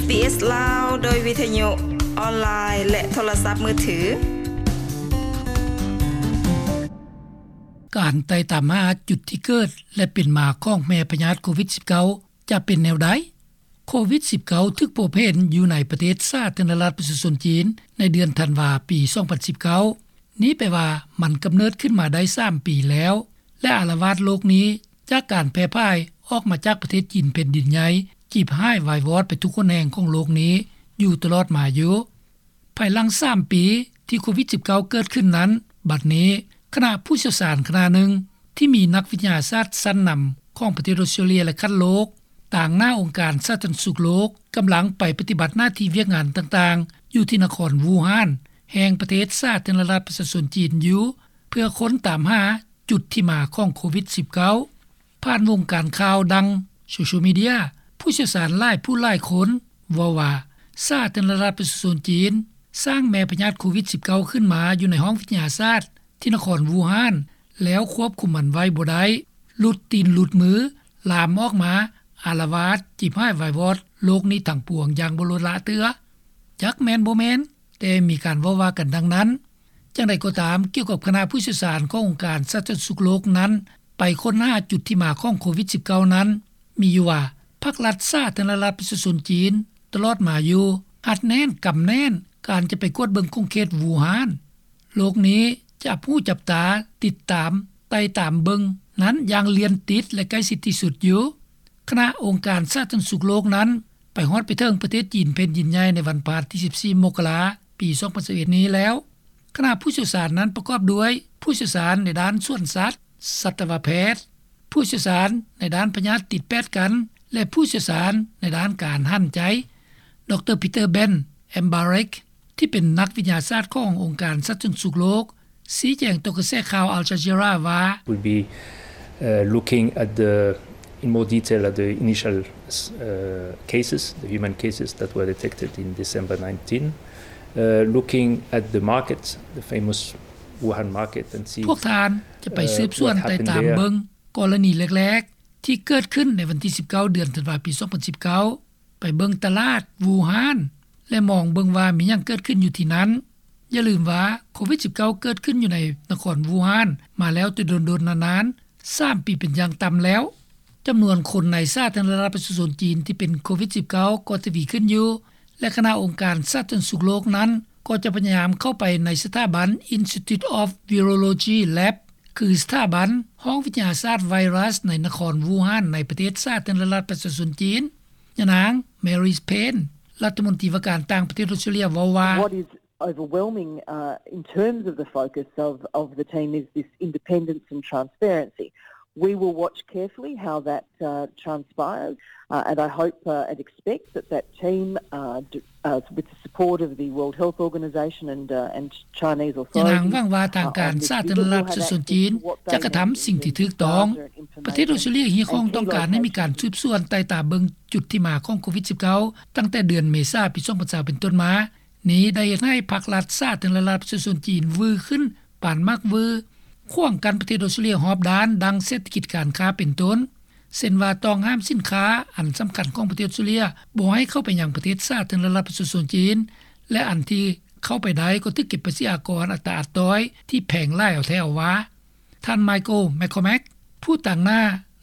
ເອສ ລາວ ໂດຍວິທະຍຸອອນລາຍ ແລະ ໂທລະສັບມືຖື. ການໄຕ່ຕາມຫາຈຸດທີ່ເກີດ ແລະ ເປັນມາຂອງແມ່ພະຍາດໂຄວິດ-ສິບເກົ້າ ຈະເປັນແນວໃດ? ໂຄວິດ-ສິບເກົ້າ ຖືກພົບເຫັນຢູ່ໃນປະເທດສາທາລະນະລັດປະຊາຊົນຈີນ ໃນເດືອນທັນວາ ປີສອງພັນສິບເກົ້າ. ນີ້ແປວ່າມັນກຳເນີດຂຶ້ນມາໄດ້ສາມປີແລ້ວ ແລະ ອາລະວາດໂລກນີ້ຈາກການແຜ່ພາຍອອກມາຈາກປະເທດຈີນແຜ່ນດິນໃຫຍ່ ຈີບຫາຍວາຍວອດໄປທຸກຫົນແຫ່ງຂອງໂລກນີ້ຢູ່ຕະຫຼອດມາຢູ່. ພາຍຫຼັງສາມປີທີ່ໂຄວິດ-ສິບເກົ້າ ເກີດຂຶ້ນນັ້ນ, ບັດນີ້ຄະນະຜູ້ຊ່ຽວຊານຄະນະໜຶ່ງ ທີ່ມີນັກວິທະຍາສາດຊັ້ນນຳຂອງປະເທດອົດສະຕຣາເລຍ ແລະ ຂັ້ນໂລກ ຕາງໜ້າອົງການສາທາລະນະສຸກໂລກ ກຳລັງໄປປະຕິບັດໜ້າທີ່ວຽກງານຕ່າງໆ ຢູ່ທີ່ນະຄອນວູຮານ ແຫ່ງປະເທດສາທາລະນະລັດປະຊາຊົນຈີນຢູ່ ເພື່ອຄົ້ນຕາມຫາຈຸດທີ່ມາຂອງໂຄວິດ-ສິບເກົ້າ. ຜ່ານວົງການຂ່າວ ດັ່ງໂຊຊຽວມີເດຍ, ຜູ້ຊ່ຽວຊານຫຼາຍຜູ້ຫຼາຍຄົນເວົ້າວ່າ ສາທາລະນະລັດປະຊາຊົນຈີນສ້າງແມ່ພະຍາດໂຄວິດ-ສິບເກົ້າ ຂຶ້ນມາຢູ່ໃນຫ້ອງວິທະຍາສາດທີ່ນະຄອນວູຮານ ແລ້ວຄວບຄຸມມັນໄວ້ບໍ່ໄດ້, ຫຼຸດຕີນຫຼຸດມື, ລາມອອກມາອາລະວາດ ຈີບຫາຍວາຍວອດໂລກນີ້ທັງປວງຢ່າງບໍ່ລົດລະເທື່ອ. ຈັກແມ່ນບໍ່ແມ່ນ, ແຕ່ມີການເວົ້າວ່າກັນດັ່ງນັ້ນ. ຈັ່ງໃດກໍຕາມ, ກ່ຽວກັບຄະນະຜູ້ຊ່ຽວຊານຂອງອົງການສາທາລະນະສຸກໂລກນັ້ນ ໄປຄົ້ນຫາຈຸດທີ່ມາຂອງໂຄວິດ-ສິບເກົ້າ ນັ້ນ, ມີຢູ່ວ່າ ພັກລັດສາທາລະນະລັດປະຊາຊົນຈີນຕະຫຼອດມາຢູ່ ອັດແໜ້ນກຳແໜ້ນການຈະໄປກວດເບິ່ງຂົງເຂດວູຮານ. ໂລກນີ້ຈັບຫູຈັບຕາ ຕິດຕາມ ໄຕ່ຕາມເບິ່ງນັ້ນຢ່າງລຽນຕິດ ແລະ ໃກ້ຊິດທີ່ສຸດຢູ່. ຄະນະອົງການສາທາລະນະສຸກໂລກນັ້ນ ໄປຮອດໄປເຖິງປະເທດຈີນແຜ່ນດິນໃຫຍ່ໃນວັນພະຫັດທີສິບສີ່ ມົກກະລາ ປີສອງພັນຊາວເອັດນີ້ແລ້ວ. ຄະນະຜູ້ຊ່ຽວຊານນັ້ນປະກອບດ້ວຍຜູ້ຊ່ຽວຊານໃນດ້ານສວນສັດ, ສັດຕະວະແພດ, ຜູ້ຊ່ຽວຊານໃນດ້ານພະຍາດຕິດແປດກັນ ແລະ ຜູ້ຊ່ຽວຊານໃນດ້ານການຫັນໃຈ. ດຣ. ປີເຕີ ເບັນ ແອມບາເຣັກ ທີ່ເປັນນັກວິທະຍາສາດຂອງອົງການສາທາລະນະສຸກໂລກ ຊີ້ແຈງຕໍ່ກະແສຂ່າວ Al Jazeera ວ່າ We'll be, uh, looking at the, in more detail at the initial, uh, cases, the human cases that were detected in December nineteen, uh, looking at the market, the famous Wuhan market, and see, ພວກທ່ານຈະໄປ uh, ສືບສວນ what happened ໄຕ່ຕາມ there. ເບິ່ງກໍລະນີແລກໆ ທີ່ເກີດຂຶ້ນໃນວັນທີສິບເກົ້າ ເດືອນທັນວາ ປີສອງພັນສິບເກົ້າ ໄປເບິ່ງຕະຫຼາດວູຮານ ແລະ ມອງເບິ່ງວ່າມີຫຍັງເກີດຂຶ້ນຢູ່ທີ່ນັ້ນ. ຢ່າລືມວ່າໂຄວິດ-ສິບເກົ້າ ເກີດຂຶ້ນຢູ່ໃນນະຄອນວູຮານມາແລ້ວແຕ່ດົນໆນານໆ ສາມປີເປັນຢ່າງຕ່ຳແລ້ວ. ຈຳນວນຄົນໃນສາທາລະນະລັດປະຊາຊົນຈີນທີ່ເປັນໂຄວິດ-ສິບເກົ້າ ກໍທະວີຂຶ້ນຢູ່ ແລະ ຄະນະອົງການສາທາລະນະສຸກໂລກນັ້ນ ກໍຈະພະຍາຍາມເຂົ້າໄປໃນສະຖາບັນ Institute of Virology Lab ຄືສະຖາບັນຫ້ອງວິທະຍາສາດໄວຣັສໃນນະຄອນວູຮານ ໃນປະເທດສາທາລະນະລັດປະຊາຊົນຈີນ. ຍານາງ Mary Payne ລັດຖະມົນຕີວ່າການຕ່າງປະເທດອົດສະຕຣາເລຍ ເວົ້າວ່າ What is overwhelming, uh, in terms of the focus of, of the team is this independence and transparency. We will watch carefully how that, uh, transpires, uh, and I hope, uh, and expect that that team, uh, d- uh, with the support of the World Health Organization and, uh, and Chinese authorities, ຍານາງຫວັງວ່າທາງການສາທາລະນະລັດປະຊາຊົນຈີນຈະກະທຳສິ່ງທີ່ຖືກຕ້ອງ. ປະເທດອົດສະຕຣາເລຍຮຽກຮ້ອງຕ້ອງການໃຫ້ມີການສືບສວນໄຕ່ຕາມເບິ່ງຈຸດທີ່ມາຂອງໂຄວິດ-ສິບເກົ້າ ຕັ້ງແຕ່ເດືອນເມສາ ປີສອງພັນຊາວ ເປັນຕົ້ນມາ. ນີ້ໄດ້ເຮັດໃຫ້ພັກລັດສາທາລະນະລັດປະຊາຊົນຈີນວືຂຶ້ນປານໝາກວື ຂວາງກັ້ນປະເທດອົດສະຕຣາເລຍຮອບດ້ານ ດັ່ງເສດຖະກິດ, ການຄ້າເປັນຕົ້ນ, ເຊັ່ນວ່າຕ້ອງຫ້າມສິນຄ້າອັນສຳຄັນຂອງປະເທດອົດສະຕຣາເລຍບໍ່ໃຫ້ເຂົ້າໄປຍັງປະເທດສາທາລະນະລັດປະຊາຊົນຈີນ ແລະ ອັນທີ່ເຂົ້າໄປໄດ້ກໍຖືກເກັບພາສີອາກອນອັດຕາອັດຕ້ອຍທີ່ແພງຫຼາຍເອົາແທ້ເອົາວ່າ. ທ່ານ Michael McCormack ຜູ້ຕາງໜ້າ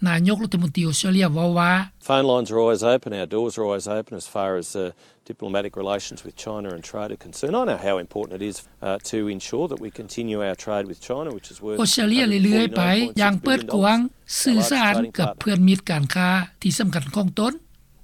ນາຍົກລັດຖະມົນຕີອົດສະຕຣາເລຍ ເວົ້າວ່າ Phone lines are always open, our doors are always open as far as, uh, diplomatic relations with China and trade are concerned. I know how important it is, uh, to ensure that we continue our trade with China, which is worth ອົດສະຕຣາເລຍເລື້ອຍໆໄປຢ່າງເປີດກວ້າງ, ສື່ສານກັບເພື່ອນມິດການຄ້າທີ່ສຳຄັນຂອງຕົນ.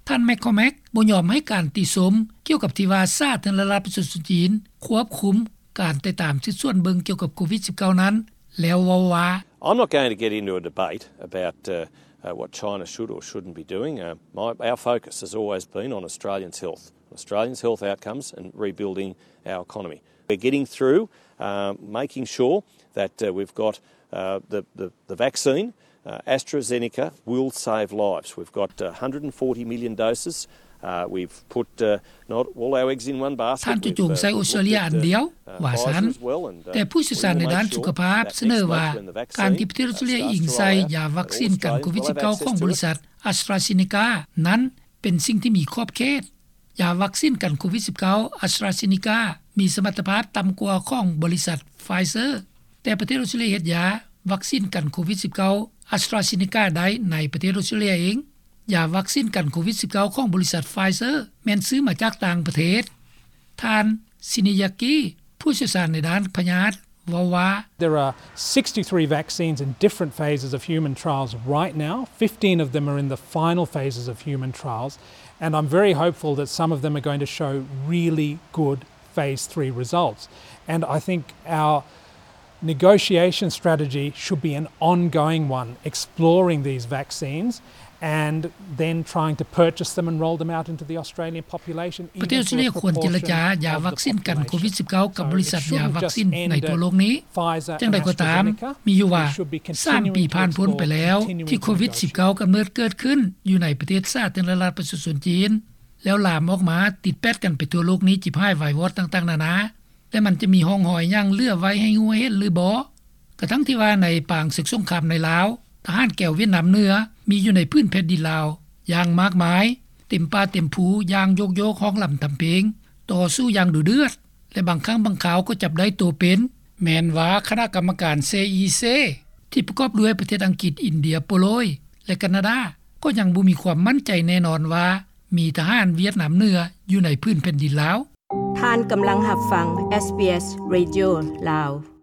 ທ່ານ McCormack ບໍ່ຍອມໃຫ້ການຕິຊົມກ່ຽວກັບທີ່ວ່າສາທາລະນະລັດປະຊາຊົນຈີນຄວບຄຸມການຕິດຕາມສືບສວນເບິ່ງກ່ຽວກັບໂຄວິດ-ສິບເກົ້າ ນັ້ນ ແລ້ວເວົ້າວ່າ I'm not going to get into a debate about, uh, uh, what China should or shouldn't be doing. Uh, my, our focus has always been on Australians' health, Australians' health outcomes and rebuilding our economy. We're getting through, uh, making sure that, uh, we've got, uh, the, the, the vaccine, uh, AstraZeneca will save lives. We've got, uh, one hundred and forty million doses. Uh, we've put, uh, not all our eggs in one basket. ທ່ານຈະຈົ່ງໃສ່ອົດສະຕຣາເລຍອັນດຽວ ວ່າຊັ້ນ. ແຕ່ຜູ້ຊ່ຽວຊານໃນດ້ານສຸຂະພາບສະເໜີວ່າ ການທີ່ປະເທດອົດສະຕຣາເລຍອີງໃສ່ຢາວັກຊີນກັນໂຄວິດ-ສິບເກົ້າ ຂອງບໍລິສັດ AstraZeneca ນັ້ນເປັນສິ່ງທີ່ມີຂອບເຂດ. ຢາວັກຊິນກັນໂຄວິດ-19 AstraZeneca ມີສະມັດຕະພາບຕ່ຳກວ່າຂອງບໍລິສັດ Pfizer, ແຕ່ປະເທດອອສເຕຣເລຍເຮັດຢາວັກຊິນກັນໂຄວິດ-19 AstraZeneca ໄດ້ໃນປະເທດອອສເຕຣເລຍເອງ. ຢາວັກຊິນກັນໂຄວິດ-19 ຂອງບໍລິສັດ Pfizer ແມ່ນຊື້ມາຈາກຕ່າງປະເທດ. ທ່ານ ຊິນີ ຢາກີ ຜູ້ຊ່ຽວຊານໃນດ້ານພະຍາດ ເວົ້າວ່າ There are sixty-three vaccines in different phases of human trials right now. Fifteen of them are in the final phases of human trials, and I'm very hopeful that some of them are going to show really good phase three results. And I think our negotiation strategy should be an ongoing one, exploring these vaccines and then trying to purchase them and roll them out into the Australian population. ປະເທດອອສເຕຣເລຍຄວນເຈລະຈາຢາວັກຊິນກັນໂຄວິດ-19 ກັບບໍລິສັດຢາວັກຊິນໃນທົ່ວໂລກນີ້. ຢ່າງໃດກໍຕາມ, ມີຢູ່ວ່າ ສາມປີຜ່ານພົ້ນໄປແລ້ວ ທີ່ໂຄວິດ-19 ກຳເນີດເກີດຂຶ້ນຢູ່ໃນປະເທດສາທາລະນະລັດປະຊາຊົນຈີນ ແລ້ວລາມອອກມາຕິດແປດກັນໄປທົ່ວໂລກນີ້ ຈິບຫາຍວາຍວອດຕ່າງໆນານາ ແລະ ມັນຈະມີຮ່ອງຮອຍຫຍັງເຫຼືອໄວ້ໃຫ້ຮູ້ເຫັນຫຼືບໍ່? ກະທັ່ງທີ່ວ່າໃນປາງເສິກສົງຄາມໃນລາວ, ທະຫານແກວຫວຽດນາມເໜືອມີຢູ່ໃນພື້ນແຜ່ນດິນລາວຢ່າງມາກມາຍ, ເຕັມປ່າເຕັມພູຢ່າງໂຍກໆ ຮ້ອງລຳທຳເພງ, ຕໍ່ສູ້ຢ່າງດຸເດືອດ ແລະ ບາງຄັ້ງບາງຄາວກໍຈັບໄດ້ໂຕເປັນ. ແມ່ນວ່າຄະນະກຳມະການ ເຊອີເຊ ທີ່ປະກອບດ້ວຍປະເທດອັງກິດ, ອິນເດຍ, ໂປໂລຍ ແລະ ການາດາ ກໍຍັງບໍ່ມີຄວາມໝັ້ນໃຈແນ່ນອນວ່າ ມີທະຫານຫວຽດນາມເໜືອຢູ່ໃນພື້ນແຜ່ນດິນລາວ. ທ່ານກຳລັງຮັບຟັງ SBS Radio ລາວ.